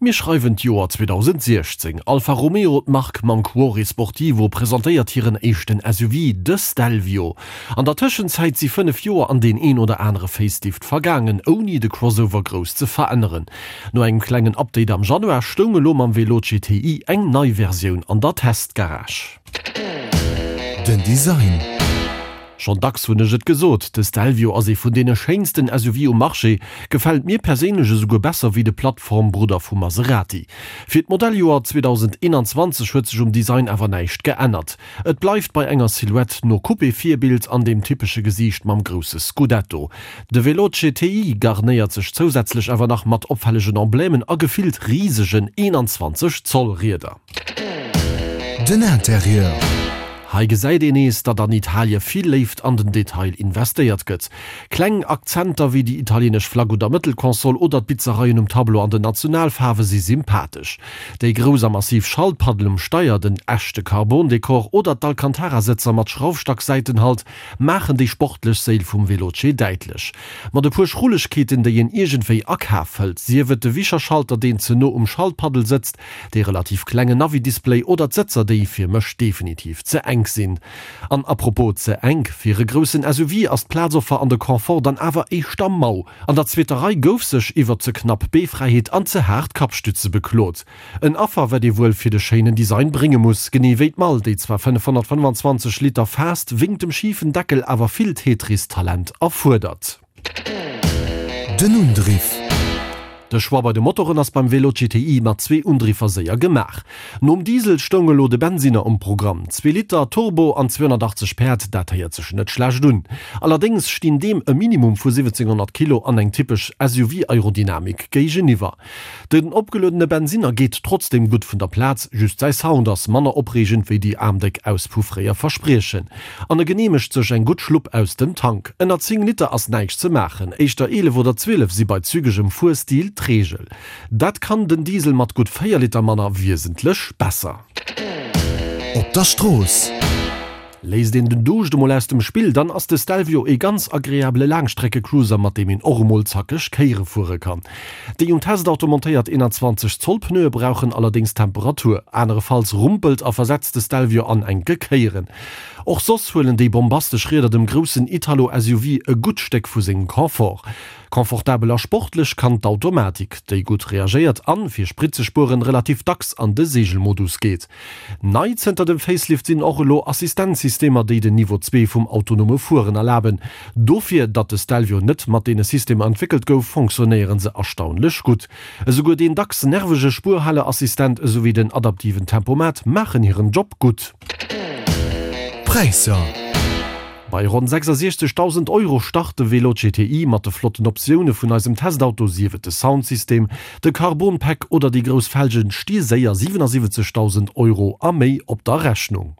Mir schreiwen d'Joer 2016. Alfa Romeo, d'Mark mam Cuore Sportivo, presentéiert hiren éischten SUV, de Stelvio. An der Tëschenzäit si 5 Joer an deen een oder anere Facelift vergaangen, ouni de Crossover grouss ze veränneren. No engem klengen Update am Januar stoung elo mam Veloce TI eng nei Versioun an der Testgarage. Den Design. Schonn dacks hunn ech et gesot, de Stelvio ass ee vun deene schéinsten SUV um Marché, gefält mir perséinlech esouguer besser wéi de Plattformbrudder vu Maserati. Fir d'Modelljoer 2021 huet sech um Design awer näischt geännert. Et bleift bei enger Silhouette no Coupé-Virbild an dem typesche Gesiicht mam grousse Scudetto. De Veloce TI garnéiert sech zousätzlech awer nach mat opfällegen Emblemen a gefillt risegen 21 Zoll Rieder. Den Interieur. Hei gesäit een nees, datt an Italie vill Léift an den Detail investéiert gëtt. Kleng Akzenter wéi déi italienesch Flagg un der Mëttelkonsol oder d'Bitzereien um Tableau an den Nationalfaarwe si sympathesch. Déi grouss a massiv Schaltpaddel um Steier, den echte Carbon-Dekor oder d'Alcantara-Sëtzer mat Schraufstack-Säitenhalt maachen déi sportlech Séil vum Veloce däitlech. Mat e puer Schrullegkeeten, déi een iergendwéi a Kaf hëlt, sief et de Wischerschalter, deen ze no um Schaltpaddel sëtzt, Dee relativ klengen Navi-Display oder d'Sëtzer déi fir mech definitiv ze enk sinn. An apropos ze enk, fir e groussen SUV ass d'Plazoffer an de Confort dann awer éischter mau. An der zweeter Rei gouf sech iwwer ze knapp Beefräiheet an ze haart Kappstütze beklot. En Affer wat ee wuel fir de schéinen Design brénge muss, genee wéi d'Mall, déi zwar 525 Liter faasst, wéngt dem schifen Deckel awer vill Tetris-Talent erfuerdert. Den Undriff. De Choix bei de Motoren ass beim Velo GTI mat zwee Undriffer séier gemaach. Nom Diesel stoung elo de Bensinner um Programm. Zwee Liter, Turbo an 280 Päerd, dat héiert sech net schlecht un. Allerdéngs stinn deem e Minimum vu 1700 Kilo an eng typesch SUV-Aerodynamik géigeniwwer. Den opgeluedene Bensinner geet trotzdeem gutt vun der Plaz, just säi Sound ass manner opreegend wéi déi aarmdéck Auspuff fréier verspriechen. An e geneemegt sech eng gutt Schlupp aus dem Tank. Ënner 10 Liter ass näischt ze maachen, éischter 11 oder 12 si bei zügegem Fuerstil d'Reegel. Dat kann den Diesel mat gutt 4 Liter manner wiesentlech besser. Op der Strooss. Léisst een den Duuscht emol aus dem Spill, dann ass de Stelvio ee ganz agreabele Laangstreckecruiser, mat deem een och emol zackeg Kéiere fuere kann. Déi um Testauto montéiert 21 Zoll Pneue brauchen allerdéngs Temperatur, anerefalls rumpelt a versetzt de Stelvio an enke Kéieren. Och soss huelen déi bombastesch Rieder dem groussen Italo-SUV e gutt Stéck vu sengem Confort. Confortabel a sportlech kann d'Automatik, déi gutt reagéiert an, fir Sprit ze spueren, relativ dacks an de Seegelmodus geet. Nei zënter dem Facelift sinn och elo Assistenzsystemer, déi den Niveau 2 vum autonome Fueren erlaben. Dofir, datt de Stelvio net mat deene Systemer entwéckelt gouf, fonctionnéiere se erstaunlech gutt. Esouguer deen dacks nervege Spuerhaleassistent esouwéi den adaptiven Tempomat maachen hiren Job gutt. Präisser. Bei ronn 66.000 Euro start de Velo GTI mat de flotten Optioune vun eisem Testauto, sief et de Soundsystem, de Carbon-Pack oder déi grouss Felgen, sti séier 77.000 Euro a méi op der Rechnung.